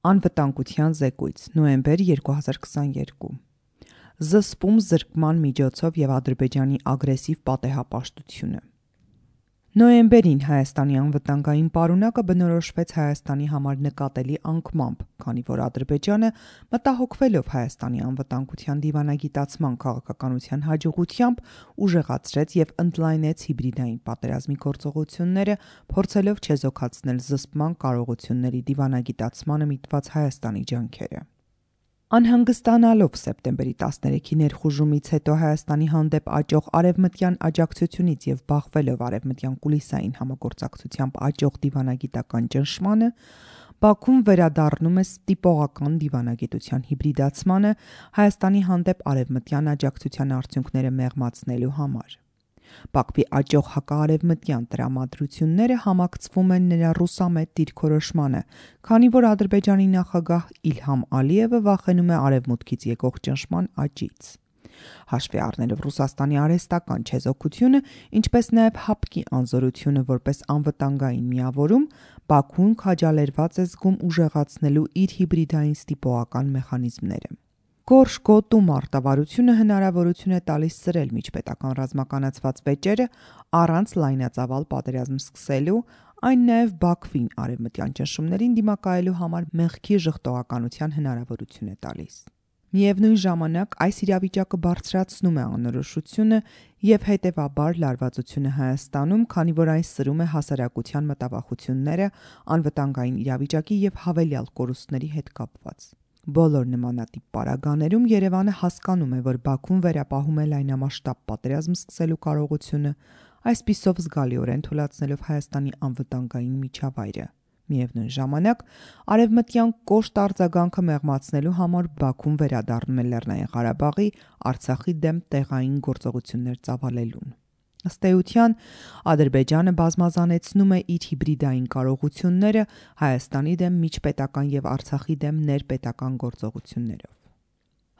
Անվտանգության զեկույց, նոյեմբեր 2022 Զսպում զրկման միջոցով և Ադրբեջանի ագրեսիվ պատեհապաշտությունը։ Նոյեմբերին Հայաստանի անվտանգային պարունակը բնորոշվեց Հայաստանի համար նկատելի անկմամբ, քանի որ Ադրբեջանը, մտահոգվելով Հայաստանի անվտանգության դիվանագիտացման քաղաքականության հաջողությամբ, ուժեղացրեց և ընդլայնեց հիբրիդային պատերազմի գործողությունները, փորձելով չեզոքացնել զսպման կարողությունների դիվանագիտացմանը միտված Հայաստանի ջանքերը։ Անհանգստանալով սեպտեմբերի 13-ի ներխուժումից հետո Հայաստանի հանդեպ աճող արևմտյան աջակցությունից և բախվելով արևմտյան կուլիսային համագործակցությամբ աճող դիվանագիտական ճնշմանը, Բաքուն վերադառնում է տիպողական դիվանագիտության հիբրիդացմանը Հայաստանի հանդեպ արևմտյան աջակցության արդյունքները մեղմացնելու համար։ Բաքվի աճող հակաարևմտյան տրամադրությունները համակցվում են նրա ռուսամետ դիրքորոշմանը, քանի որ Ադրբեջանի նախագահ Իլհամ Ալիևը վախենում է արևմուտքից եկող ճնշման աճից։ Հաշվի առնելով Ռուսաստանի արհեստական չեզոքությունը, ինչպես նաև ՀԱՊԿ-ի անզորությունը որպես անվտանգային միավորում, Բաքուն քաջալերված է զգում ուժեղացնելու իր հիբրիդային ստիպողական մեխանիզմները։ Գորշ գոտու մարտավարությունը հնարավորություն է տալիս սրել միջպետական ռազմականացված վեճերը առանց լայնածավալ պատերազմ սկսելու, այն նաև Բաքվին արևմտյան ճնշումներին դիմակայելու համար մեղքի ժխտողականության հնարավորություն է տալիս։ Միևնույն ժամանակ այս իրավիճակը բարձրացնում է անորոշությունը և հետևաբար լարվածությունը Հայաստանում, քանի որ այն սրում է հասարակության մտավախությունները անվտանգային իրավիճակի և հավելյալ կորուստների հետ կապված։ Բոլոր նմանատիպ պարագաներում Երևանը հասկանում է, որ Բաքուն վերապահում է լայնամասշտաբ պատերազմ սկսելու կարողությունը, այսպիսով զգալիորեն թուլացնելով Հայաստանի անվտանգային միջավայրը։ Միևնույն ժամանակ, արևմտյան կոշտ արձագանքը մեղմացնելու համար Բաքուն վերադառնում է Լեռնային Ղարաբաղի, Արցախի դեմ տեղային գործողություններ ծավալելուն։ Ըստ էության, Ադրբեջանը բազմազանեցնում է իր հիբրիդային կարողությունները Հայաստանի դեմ միջպետական և Արցախի դեմ ներպետական գործողություններով։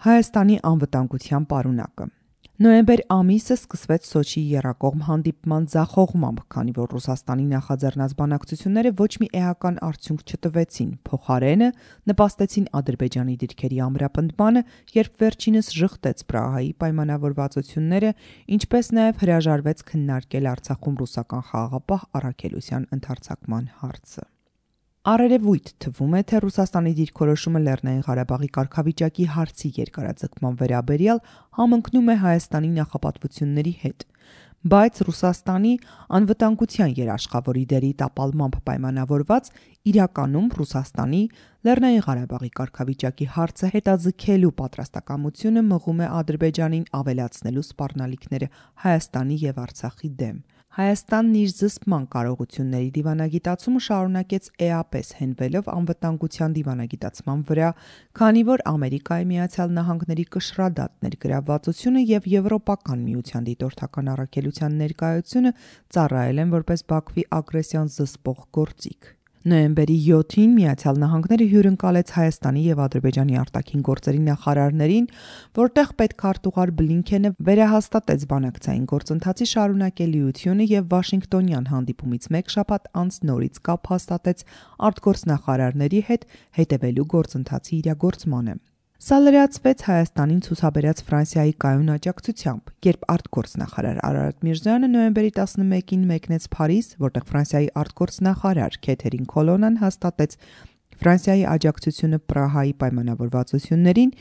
Հայաստանի անվտանգության պարունակը Նոյեմբեր ամիսը սկսվեց Սոչիի եռակողմ հանդիպման ձախողմամբ, քանի որ Ռուսաստանի նախաձեռնած բանակցությունները ոչ մի էական արդյունք չտվեցին, փոխարենը նպաստեցին Ադրբեջանի դիրքերի ամրապնդմանը, երբ վերջինս ժխտեց Պրահայի պայմանավորվածությունները, ինչպես նաև հրաժարվեց քննարկել Արցախում ռուսական խաղաղապահ առաքելության ընդարձակման հարցը։ Առերևույթ թվում է, թե Ռուսաստանի դիրքորոշումը Լեռնային Ղարաբաղի կարգավիճակի հարցի երկարաձգման վերաբերյալ համընկնում է Հայաստանի նախապատվությունների հետ, բայց Ռուսաստանի անվտանգության երաշխավորի դերի տապալմամբ պայմանավորված, իրականում Ռուսաստանի Լեռնային Ղարաբաղի կարգավիճակի հարցը հետաձգելու պատրաստակամությունը մղում է Ադրբեջանին ավելացնելու սպառնալիքները Հայաստանի և Արցախի դեմ։ Հայաստանն իր զսպման կարողությունների դիվանագիտացումը շարունակեց էապես հենվելով անվտանգության դիվանագիտացման վրա, քանի որ Ամերիկայի Միացյալ Նահանգների կշռադատ ներգրավվածությունը և Եվրոպական միության դիտորդական առաքելության ներկայությունը ծառայել են որպես Բաքվի ագրեսիան զսպող գործիք։ Նոյեմբերի 7-ին Միացյալ Նահանգները հյուրընկալեց Հայաստանի և Ադրբեջանի արտաքին գործերի նախարարներին, որտեղ պետքարտուղար Բլինքենը վերահաստատեց բանակցային գործընթացի շարունակելիությունը և Վաշինգտոնյան հանդիպումից մեկ շաբաթ անց նորից կապ հաստատեց արտգործնախարարների հետ հետևելու գործընթացի իրագործմանը։ Սա լրացվեց Հայաստանին ցուցաբերած Ֆրանսիայի կայուն աջակցությամբ, երբ արտգործնախարար Արարատ Միրզոյանը նոյեմբերի 11-ին մեկնեց Փարիզ, որտեղ Ֆրանսիայի արտգործնախարար Քեթերին Քոլոննան հաստատեց Ֆրանսիայի աջակցությունը Պրահայի պայմանավորվածություններին,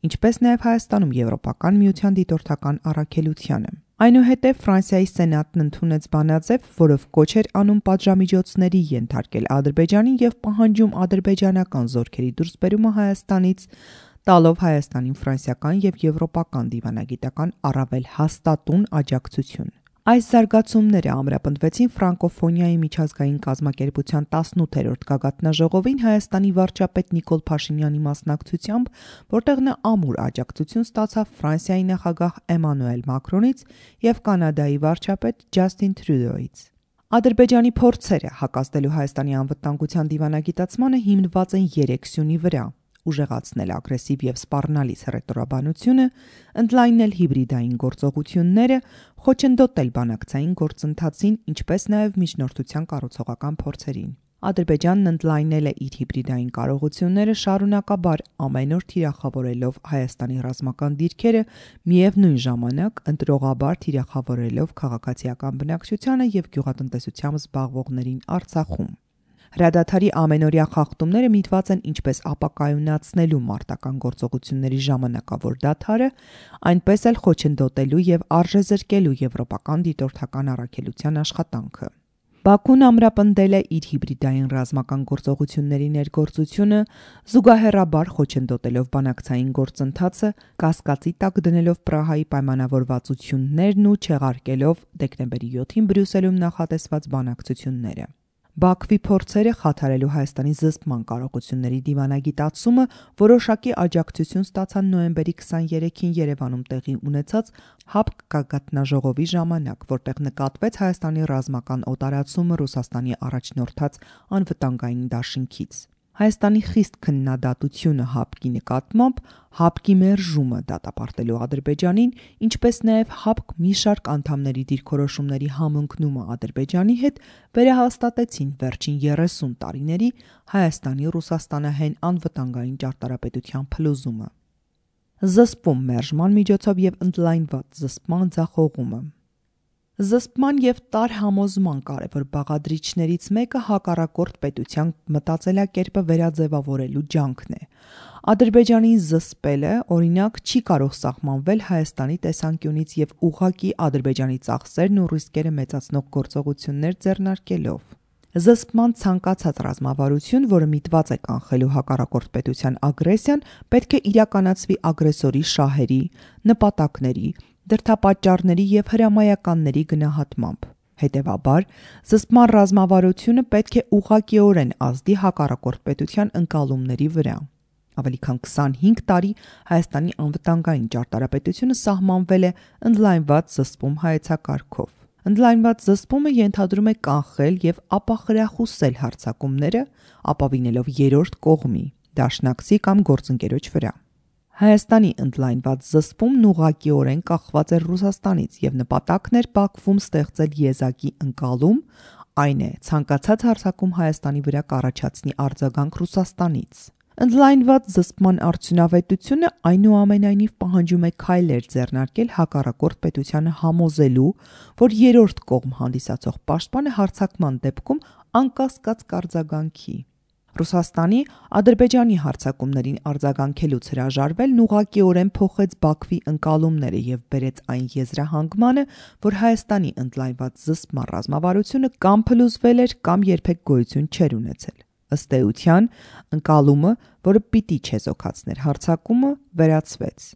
ինչպես նաև Հայաստանում Եվրոպական միության դիտորդական առաքելությանը։ Այնուհետև Ֆրանսիայի Սենատն ընդունեց բանաձև, որով կոչ էր անում պատժամիջոցների ենթարկել Ադրբեջանին և պահանջում ադրբեջանական զորքերի դուրսբերումը Հայաստանից, տալով Հայաստանին ֆրանսիական և եվրոպական դիվանագիտական առավել հաստատուն աջակցություն։ Այս զարգացումները ամրապնդվեցին Ֆրանկոֆոնիայի միջազգային կազմակերպության 18-րդ գագաթնաժողովին Հայաստանի վարչապետ Նիկոլ Փաշինյանի մասնակցությամբ, որտեղ նա ամուր աջակցություն ստացավ Ֆրանսիայի նախագահ Էմանուել Մակրոնից և Կանադայի վարչապետ Ջասթին Տրյուդոյից։ Ադրբեջանի փորձերը հակազդելու Հայաստանի անվտանգության դիվանագիտացմանը հիմնված են 3 սյունի վրա՝ ուժեղացնել ագրեսիվ և սպառնալից հռետորաբանությունը, ընդլայնել հիբրիդային գործողությունները, խոչընդոտել բանակցային գործընթացին, ինչպես նաև միջնորդության կառուցողական փորձերին։ Ադրբեջանն ընդլայնել է իր հիբրիդային կարողությունները շարունակաբար ամեն օր թիրախավորելով Հայաստանի ռազմական դիրքերը, միևնույն ժամանակ ընտրողաբար թիրախավորելով քաղաքացիական բնակչությանը եւ գյուղատնտեսությամբ զբաղվողներին Արցախում։ Հրադադարի ամենօրյա խախտումները միտված են ինչպես ապակայունացնելու մարտական գործողությունների ժամանակավոր դադարը, այնպես էլ խոչընդոտելու եւ արժեզրկելու եվրոպական դիտորդական առաքելության աշխատանքը։ Բաքուն ամրապնդել է իր հիբրիդային ռազմական գործողությունների ներգործությունը, զուգահեռաբար խոչընդոտելով բանակցային գործընթացը, կասկածի տակ դնելով Պրահայի պայմանավորվածություններն ու չեղարկելով դեկտեմբերի 7-ին Բրյուսելում նախատեսված բանակցությունները։ Բաքվի փորձերը խաթարելու Հայաստանի զսպման կարողությունների դիվանագիտացումը որոշակի աջակցություն ստացան նոյեմբերի 23-ին Երևանում տեղի ունեցած ՀԱՊԿ գագաթնաժողովի ժամանակ, որտեղ նկատվեց Հայաստանի ռազմական օտարացումը Ռուսաստանի առաջնորդած անվտանգային դաշինքից։ Հայաստանի խիստ քննադատությունը ՀԱՊԿ-ի նկատմամբ, ՀԱՊԿ-ի մերժումը դատապարտելու Ադրբեջանին, ինչպես նաև ՀԱՊԿ մի շարք անդամների դիրքորոշումների համընկնումը Ադրբեջանի հետ վերահաստատեցին վերջին 30 տարիների Հայաստանի Ռուսաստանահեն անվտանգային ճարտարապետության փլուզումը։ Զսպում մերժման միջոցով եւ ընդլայնված զսպման ձախողումը։ Զսպման եւ տարհամոզման կարևոր բաղադրիչներից մեկը հակառակորդ պետության մտածելակերպը վերաձևավորելու ջանքն է։ Ադրբեջանին զսպելը, օրինակ, չի կարող սահմանվել Հայաստանի տեսանկյունից եւ ուղղակի Ադրբեջանի ծախսերն ու ռիսկերը մեծացնող գործողություններ ձեռնարկելով։ Զսպման ցանկացած ռազմավարություն, որը միտված է կանխելու հակառակորդ պետության ագրեսիան, պետք է իրականացվի ագրեսորի շահերի, նպատակների, դրդապատճառների եւ հրամայականների գնահատմամբ։ Հետևաբար, զսպման ռազմավարությունը պետք է ուղղակիորեն ազդի հակառակորդ պետության ընկալումների վրա։ Ավելի քան 25 տարի Հայաստանի անվտանգային ճարտարապետությունը սահմանվել է ընդլայնված զսպում հայեցակարգով։ Ընդլայնված զսպումը ենթադրում է կանխել եւ ապախրախուսել հարձակումները, ապավինելով երրորդ կողմի, դաշնակցի կամ գործընկերոջ վրա։ Հայաստանի ընդլայնված զսպումն ուղղակիորեն կախված էր Ռուսաստանից եւ նպատակն էր Բաքվում ստեղծել եզակի ընկալում, այն է ցանկացած հարձակում Հայաստանի վրա կառաջացնի արձագանք Ռուսաստանից։ Ընդլայնված զսպման արդյունավետությունը այնուամենայնիվ պահանջում է քայլեր ձեռնարկել հակառակորդ պետությանը համոզելու, որ երրորդ կողմ հանդիսացող պաշտպանը հարձակման դեպքում անկասկած կարձագանքի։ Ռուսաստանի Ադրբեջանի հարձակումներին արձագանքելուց հրաժարվելն ուղղակիորեն փոխեց Բաքվի ընկալումները եւ բերեց այն եզրահանգմանը, որ Հայաստանի ընդլայնված զսպման ռազմավարությունը կամ փլուզվել էր, կամ երբեք գոյություն չէր ունեցել։ Ըստ էության, ընկալումը, որը պիտի չեզոքացներ հարձակումը, վերացվեց։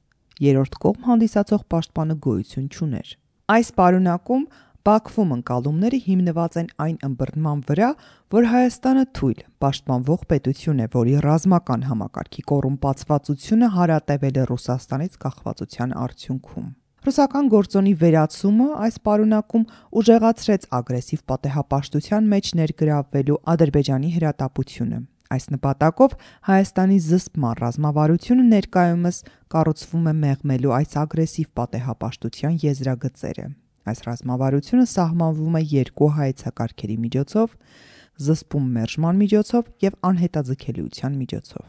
Երրորդ կողմ հանդիսացող պաշտպանը գոյություն չուներ։ Այս պարունակում Բաքվում ընկալումները հիմնված են այն ըմբռնման վրա, որ Հայաստանը թույլ պաշտպանվող պետություն է, որի ռազմական համակարգի կոռումպացվածությունը հարատևել է Ռուսաստանից կախվածության արդյունքում։ Ռուսական գործոնի վերացումը այս պարունակում ուժեղացրեց ագրեսիվ պատեհապաշտության մեջ ներգրավվելու Ադրբեջանի հրատապությունը։ Այս նպատակով Հայաստանի զսպման ռազմավարությունը ներկայումս կառուցվում է մեղմելու այս ագրեսիվ պատեհապաշտության եզրագծերը։ Այս ռազմավարությունը սահմանվում է երկու հայեցակարգերի միջոցով՝ զսպում մերժման միջոցով եւ անհետաձգելիության միջոցով։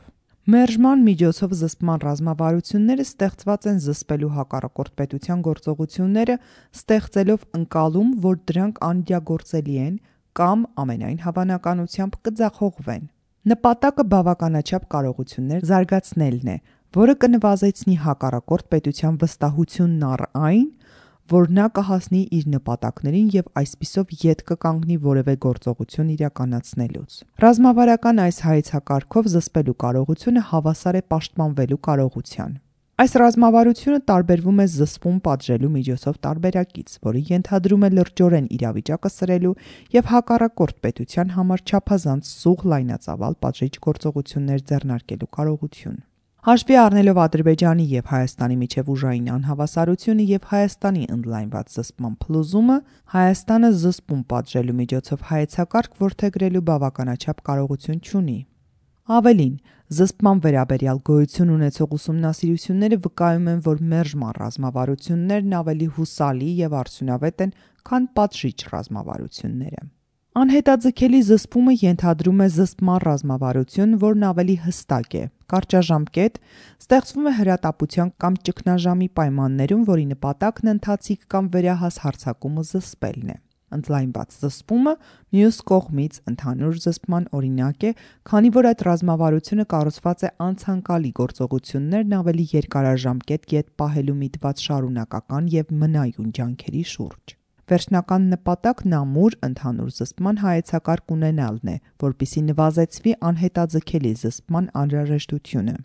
Մերժման միջոցով զսպման ռազմավարությունները ստեղծված են զսպելու հակառակորդ պետության գործողությունները, ստեղծելով ընկալում, որ դրանք անիդեագործելի են կամ ամենայն հավանականությամբ կձախողվեն։ Նպատակը բավականաչափ կարողություններ զարգացնելն է, որը կնվազեցնի հակառակորդ պետության վստահությունն առ այն, որ նա կհասնի իր նպատակներին եւ այսպիսով ետ կկանգնի որևէ գործողություն իրականացնելուց։ Ռազմավարական այս հայեցակարգով զսպելու կարողությունը հավասար է պաշտպանվելու կարողության։ Այս ռազմավարությունը տարբերվում է զսպում պատժելու միջոցով տարբերակից, որը ենթադրում է լրջորեն իրավիճակը սրելու եւ հակառակորդ պետության համար չափազանց սուղ լայնածավալ պատժիչ գործողություններ ձեռնարկելու կարողություն։ Հաշվի առնելով Ադրբեջանի եւ Հայաստանի միջև ուժային անհավասարությունը եւ Հայաստանի ընդլայնված զսպման փլուզումը, Հայաստանը զսպում պատժելու միջոցով հայեցակարգ որդեգրելու բավականաչափ կարողություն չունի։ Ավելին, զսպման վերաբերյալ գոյություն ունեցող ուսումնասիրությունները վկայում են, որ մերժման ռազմավարություններն ավելի հուսալի եւ արդյունավետ են, քան պատժիչ ռազմավարությունները։ Անհետաձգելի զսպումը ենթադրում է զսպման ռազմավարություն, որն ավելի հստակ է, կարճաժամկետ, ստեղծվում է հրատապության կամ ճգնաժամի պայմաններում, որի նպատակն ընթացիկ կամ վերահաս հարձակումը զսպելն է։ Ընդլայնված զսպումը մյուս կողմից ընդհանուր զսպման օրինակ է, քանի որ այդ ռազմավարությունը կառուցված է անցանկալի գործողություններն ավելի երկարաժամկետ կետ պահելու միտված շարունակական և մնայուն ջանքերի շուրջ։ Վերջնական նպատակն ամուր ընդհանուր զսպման հայեցակարգ ունենալն է, որպեսզի նվազեցվի անհետաձգելի զսպման անհրաժեշտությունը։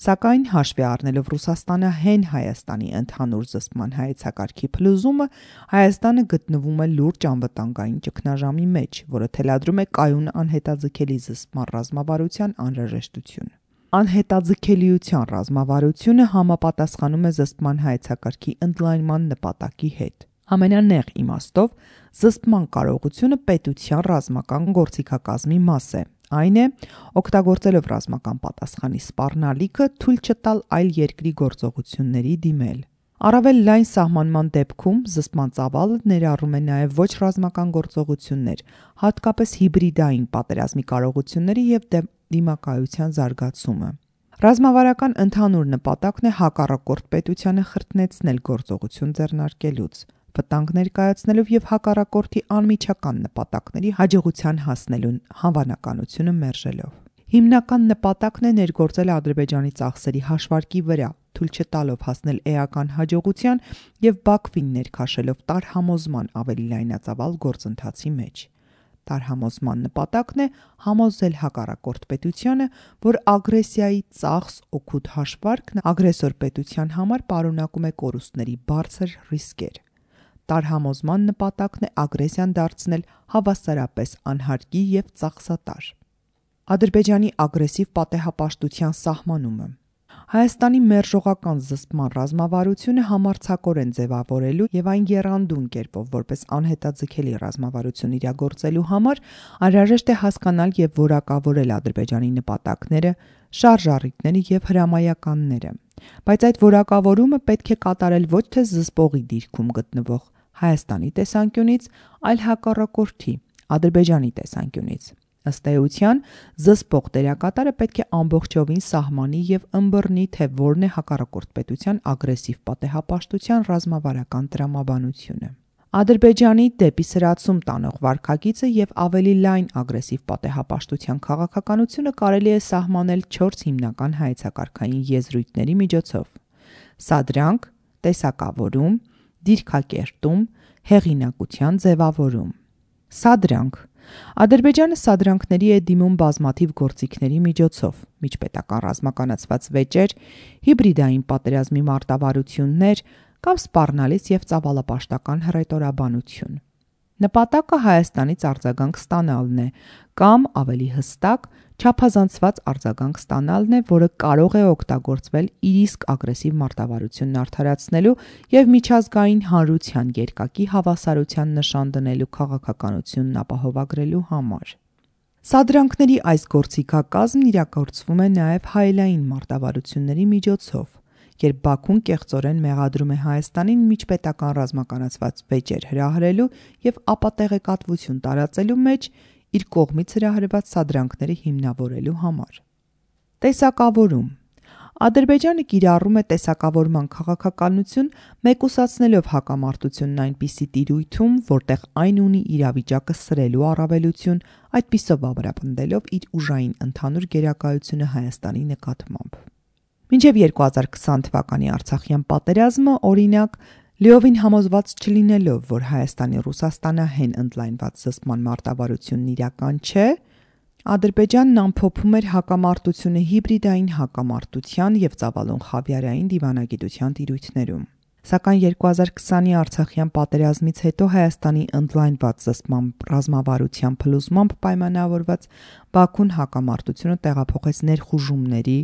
Սակայն հաշվի առնելով Ռուսաստանահեն Հայաստանի ընդհանուր զսպման հայեցակարգի փլուզումը, Հայաստանը գտնվում է լուրջ անվտանգային ճգնաժամի մեջ, որը թելադրում է կայուն անհետաձգելի զսպման ռազմավարության անհրաժեշտություն։ Անհետաձգելիության ռազմավարությունը համապատասխանում է զսպման հայեցակարգի ընդլայնման նպատակի հետ։ Ամենանեղ իմաստով զսպման կարողությունը պետության ռազմական գործիքակազմի մաս է։ Այն է, օգտագործելով ռազմական պատասխանի սպառնալիքը, թույլ չտալ այլ երկրի գործողությունների դիմել։ Առավել լայն սահմանման դեպքում զսպման ծավալը ներառում է նաև ոչ ռազմական գործողություններ, հատկապես հիբրիդային պատերազմի կարողությունների և դիմակայության զարգացումը։ Ռազմավարական ընդհանուր նպատակն է հակառակորդ պետությանը խրտնեցնել գործողություն ձեռնարկելուց, վտանգ ներկայացնելով և հակառակորդի անմիջական նպատակների հաջողության հասնելու հավանականությունը մերժելով։ Հիմնական նպատակն է ներգործել Ադրբեջանի ծախսերի հաշվարկի վրա, թույլ չտալով հասնել էական հաջողության և Բաքվին ներքաշելով տարհամոզման ավելի լայնածավալ գործընթացի մեջ։ Տարհամոզման նպատակն է համոզել հակառակորդ պետությանը, որ ագրեսիայի ծախս օգուտ հաշվարկն ագրեսոր պետության համար պարունակում է կորուստների բարձր ռիսկեր։ Տարհամոզման նպատակն է ագրեսիան դարձնել հավասարապես անհարկի և ծախսատար։ Ադրբեջանի ագրեսիվ պատեհապաշտության սահմանումը։ Հայաստանի մերժողական զսպման ռազմավարությունը համարձակորեն ձևավորելու և այն եռանդուն կերպով որպես անհետաձգելի ռազմավարություն իրագործելու համար անհրաժեշտ է հասկանալ և որակավորել Ադրբեջանի նպատակները, շարժառիթները և հրամայականները, բայց այդ որակավորումը պետք է կատարել ոչ թե զսպողի դիրքում գտնվող Հայաստանի տեսանկյունից, այլ հակառակորդի՝ Ադրբեջանի տեսանկյունից։ Ըստ էության, զսպող դերակատարը պետք է ամբողջովին սահմանի և ըմբռնի, թե որն է հակառակորդ պետության ագրեսիվ պատեհապաշտության ռազմավարական տրամաբանությունը։ Ադրբեջանի դեպի սրացում տանող վարքագիծը և ավելի լայն ագրեսիվ պատեհապաշտության քաղաքականությունը կարելի է սահմանել 4 հիմնական հայեցակարգային եզրույթների միջոցով՝ սադրանք, տեսակավորում, դիրքակերտում, հեղինակության ձևավորում։ Սադրանք։ Ադրբեջանը սադրանքների է դիմում բազմաթիվ գործիքների միջոցով՝ միջպետական ռազմականացված վեճեր, հիբրիդային պատերազմի մարտավարություններ կամ սպառնալից և ծավալապաշտական հռետորաբանություն։ Նպատակը Հայաստանից արձագանք ստանալն է կամ, ավելի հստակ, չափազանցված արձագանք ստանալն է, որը կարող է օգտագործվել իր իսկ ագրեսիվ մարտավարությունն արդարացնելու և միջազգային հանրության երկակի հավասարության նշան դնելու քաղաքականությունն ապահովագրելու համար։ Սադրանքների այս գործիքակազմն իրագործվում է նաև հայելային մարտավարությունների միջոցով, երբ Բաքուն կեղծորեն մեղադրում է Հայաստանին միջպետական ռազմականացված վեճեր հրահրելու և ապատեղեկատվություն տարածելու մեջ իր կողմից հրահրված սադրանքները հիմնավորելու համար։ Տեսակավորում։ Ադրբեջանը կիրառում է տեսակավորման քաղաքականություն, մեկուսացնելով հակամարտությունն այնպիսի տիրույթում, որտեղ այն ունի իրավիճակը սրելու առավելություն, այդպիսով ամրապնդելով իր ուժային ընդհանուր գերակայությունը Հայաստանի նկատմամբ։ Մինչև 2020 թվականի Արցախյան պատերազմը, օրինակ, լիովին համոզված չլինելով, որ Հայաստանի Ռուսաստանահեն ընդլայնված զսպման մարտավարությունն իրական չէ, Ադրբեջանն ամփոփում էր հակամարտությունը հիբրիդային հակամարտության և ծավալուն խավիարային դիվանագիտության տիրույթներում։ Սակայն 2020-ի Արցախյան պատերազմից հետո Հայաստանի ընդլայնված զսպման ռազմավարության փլուզմամբ պայմանավորված Բաքուն հակամարտությունը տեղափոխեց ներխուժումների,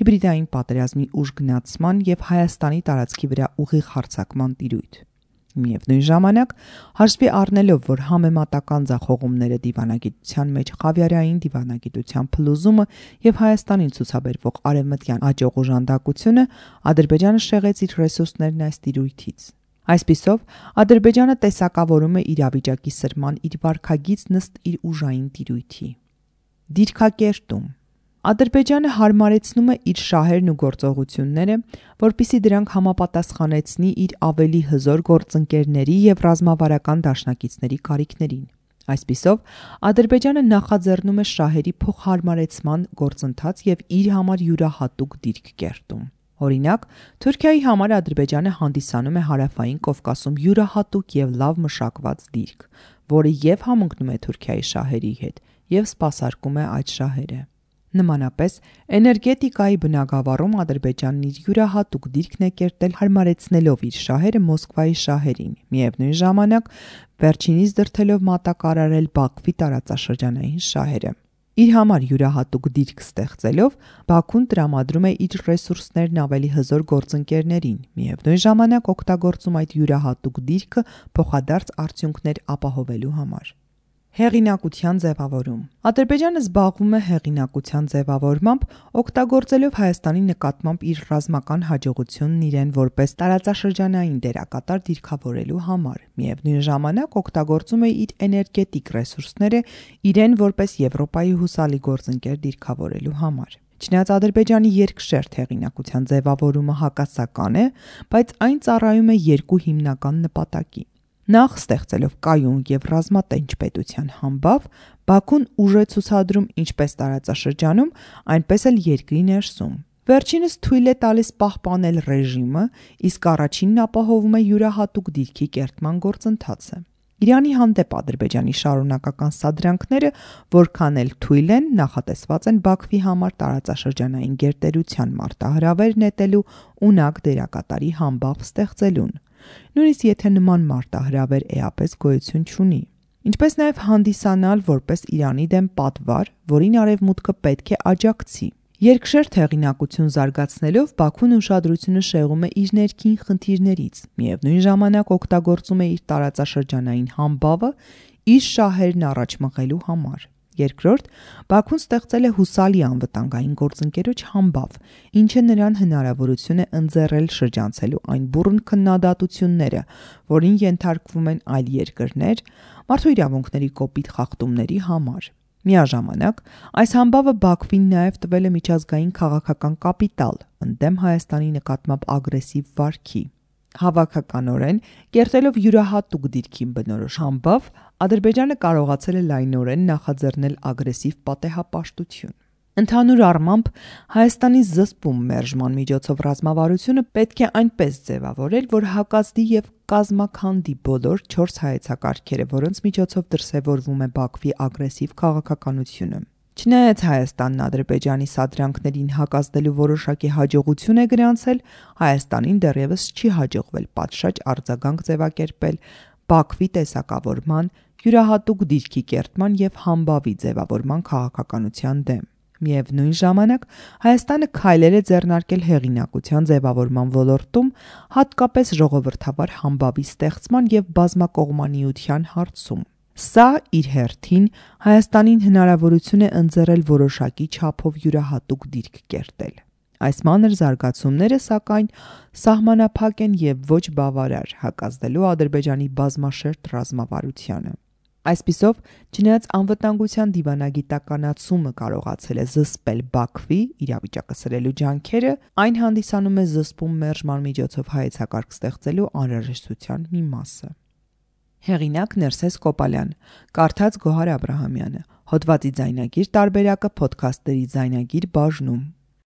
հիբրիդային պատերազմի ուժգնացման և Հայաստանի տարածքի վրա ուղիղ հարձակման տիրույթ։ Միևնույն ժամանակ, հաշվի առնելով, որ համեմատական ձախողումները դիվանագիտության մեջ խավիարային դիվանագիտության փլուզումը և Հայաստանին ցուցաբերվող արևմտյան աջող օժանդակությունը, Ադրբեջանը շեղեց իր ռեսուրսներն այս տիրույթից։ Այսպիսով, Ադրբեջանը տեսակավորում է իրավիճակի սրման իր վարքագիծն ըստ իր ուժային տիրույթի։ Դիրքակերտում Ադրբեջանը հարմարեցնում է իր շահերն ու գործողությունները, որպեսզի դրանք համապատասխանեցնի իր ավելի հզոր գործընկերների և ռազմավարական դաշնակիցների կարիքներին։ Այսպիսով, Ադրբեջանը նախաձեռնում է շահերի փոխհարմարեցման գործընթաց և իր համար յուրահատուկ դիրք կերտում։ Օրինակ, Թուրքիայի համար Ադրբեջանը հանդիսանում է Հարավային Կովկասում յուրահատուկ և լավ մշակված դիրք, որը և համընկնում է Թուրքիայի շահերի հետ, և սպասարկում է այդ շահերը։ Նմանապես, էներգետիկայի բնագավառում Ադրբեջանն իր յուրահատուկ դիրքն է կերտել հարմարեցնելով իր շահերը Մոսկվայի շահերին, միևնույն ժամանակ վերջինիս դրդելով մատակարարել Բաքվի տարածաշրջանային շահերը։ Իր համար յուրահատուկ դիրք ստեղծելով, Բաքուն տրամադրում է իր ռեսուրսներն ավելի հզոր գործընկերներին, միևնույն ժամանակ օգտագործում այդ յուրահատուկ դիրքը փոխադարձ արդյունքներ ապահովելու համար։ Հեղինակության ձևավորում Ադրբեջանը զբաղվում է հեղինակության ձևավորմամբ, օգտագործելով Հայաստանի նկատմամբ իր ռազմական հաջողությունն իրեն որպես տարածաշրջանային դերակատար դիրքավորելու համար, միևնույն ժամանակ օգտագործում է իր էներգետիկ ռեսուրսները իրեն որպես Եվրոպայի հուսալի գործընկեր դիրքավորելու համար։ Չնայած Ադրբեջանի երկշերտ հեղինակության ձևավորումը հակասական է, բայց այն ծառայում է երկու հիմնական նպատակի։ Նախ ստեղծելով կայուն և ռազմատենչ պետության համբավ, Բաքուն ուժ է ցուցադրում ինչպես տարածաշրջանում, այնպես էլ երկրի ներսում։ Վերջինս թույլ է տալիս պահպանել ռեժիմը, իսկ առաջինն ապահովում է յուրահատուկ դիրքի կերտման գործընթացը։ Իրանի հանդեպ Ադրբեջանի շարունակական սադրանքները, որքան էլ թույլ են, նախատեսված են Բաքվի համար տարածաշրջանային գերտերության մարտահրավեր նետելու ունակ դերակատարի համբավ ստեղծելուն, նույնիսկ եթե նման մարտահրավեր էապես գոյություն չունի, ինչպես նաև հանդիսանալ որպես Իրանի դեմ պատվար, որին Արևմուտքը պետք է աջակցի։ Երկշերտ հեղինակություն զարգացնելով Բաքուն ուշադրությունը շեղում է իր ներքին խնդիրներից, միևնույն ժամանակ օգտագործում է իր տարածաշրջանային համբավը իր շահերն առաջ մղելու համար։ Երկրորդ, Բաքուն ստեղծել է հուսալի անվտանգային գործընկերոջ համբավ, ինչը նրան հնարավորություն է ընձեռել շրջանցելու այն բուռն քննադատությունները, որին ենթարկվում են այլ երկրներ մարդու իրավունքների կոպիտ խախտումների համար։ Միաժամանակ, այս համբավը Բաքվին նաև տվել է միջազգային քաղաքական կապիտալ ընդդեմ Հայաստանի նկատմամբ ագրեսիվ վարքի։ Հավաքականորեն, կերտելով յուրահատուկ դիրքին բնորոշ համբավ, Ադրբեջանը կարողացել է լայնորեն նախաձեռնել ագրեսիվ պատեհապաշտություն։ Ընդհանուր առմամբ, Հայաստանի զսպում մերժման միջոցով ռազմավարությունը պետք է այնպես ձևավորել, որ հակազդի և կազմաքանդի բոլոր 4 հայեցակարգերը, որոնց միջոցով դրսևորվում է Բաքվի ագրեսիվ քաղաքականությունը։ Չնայած Հայաստանն Ադրբեջանի սադրանքներին հակազդելու որոշակի հաջողություն է գրանցել, Հայաստանին դեռևս չի հաջողվել պատշաճ արձագանք ձևակերպել Բաքվի տեսակավորման, յուրահատուկ դիրքի կերտման և համբավի ձևավորման քաղաքականության դեմ։ Միևնույն ժամանակ, Հայաստանը քայլեր է ձեռնարկել հեղինակության ձևավորման ոլորտում, հատկապես ժողովրդավար համբավի ստեղծման և բազմակողմանիության հարցում։ Սա, իր հերթին, Հայաստանին հնարավորություն է ընձեռել որոշակի չափով յուրահատուկ դիրք կերտել։ Այս մանր զարգացումները, սակայն, սահմանափակ են և ոչ բավարար հակազդելու Ադրբեջանի բազմաշերտ ռազմավարությանը։ Այսպիսով, չնայած անվտանգության դիվանագիտականացումը կարողացել է զսպել Բաքվի իրավիճակը սրելու ջանքերը, այն հանդիսանում է զսպում մերժման միջոցով հայեցակարգ ստեղծելու անհրաժեշտության մի մասը։ Հեղինակ Ներսես Կոպալյան, կարդաց Գոհար Աբրահամյանը, հոդվածի ձայնագիր տարբերակը Փոդքասթերի ձայնագիր բաժնում։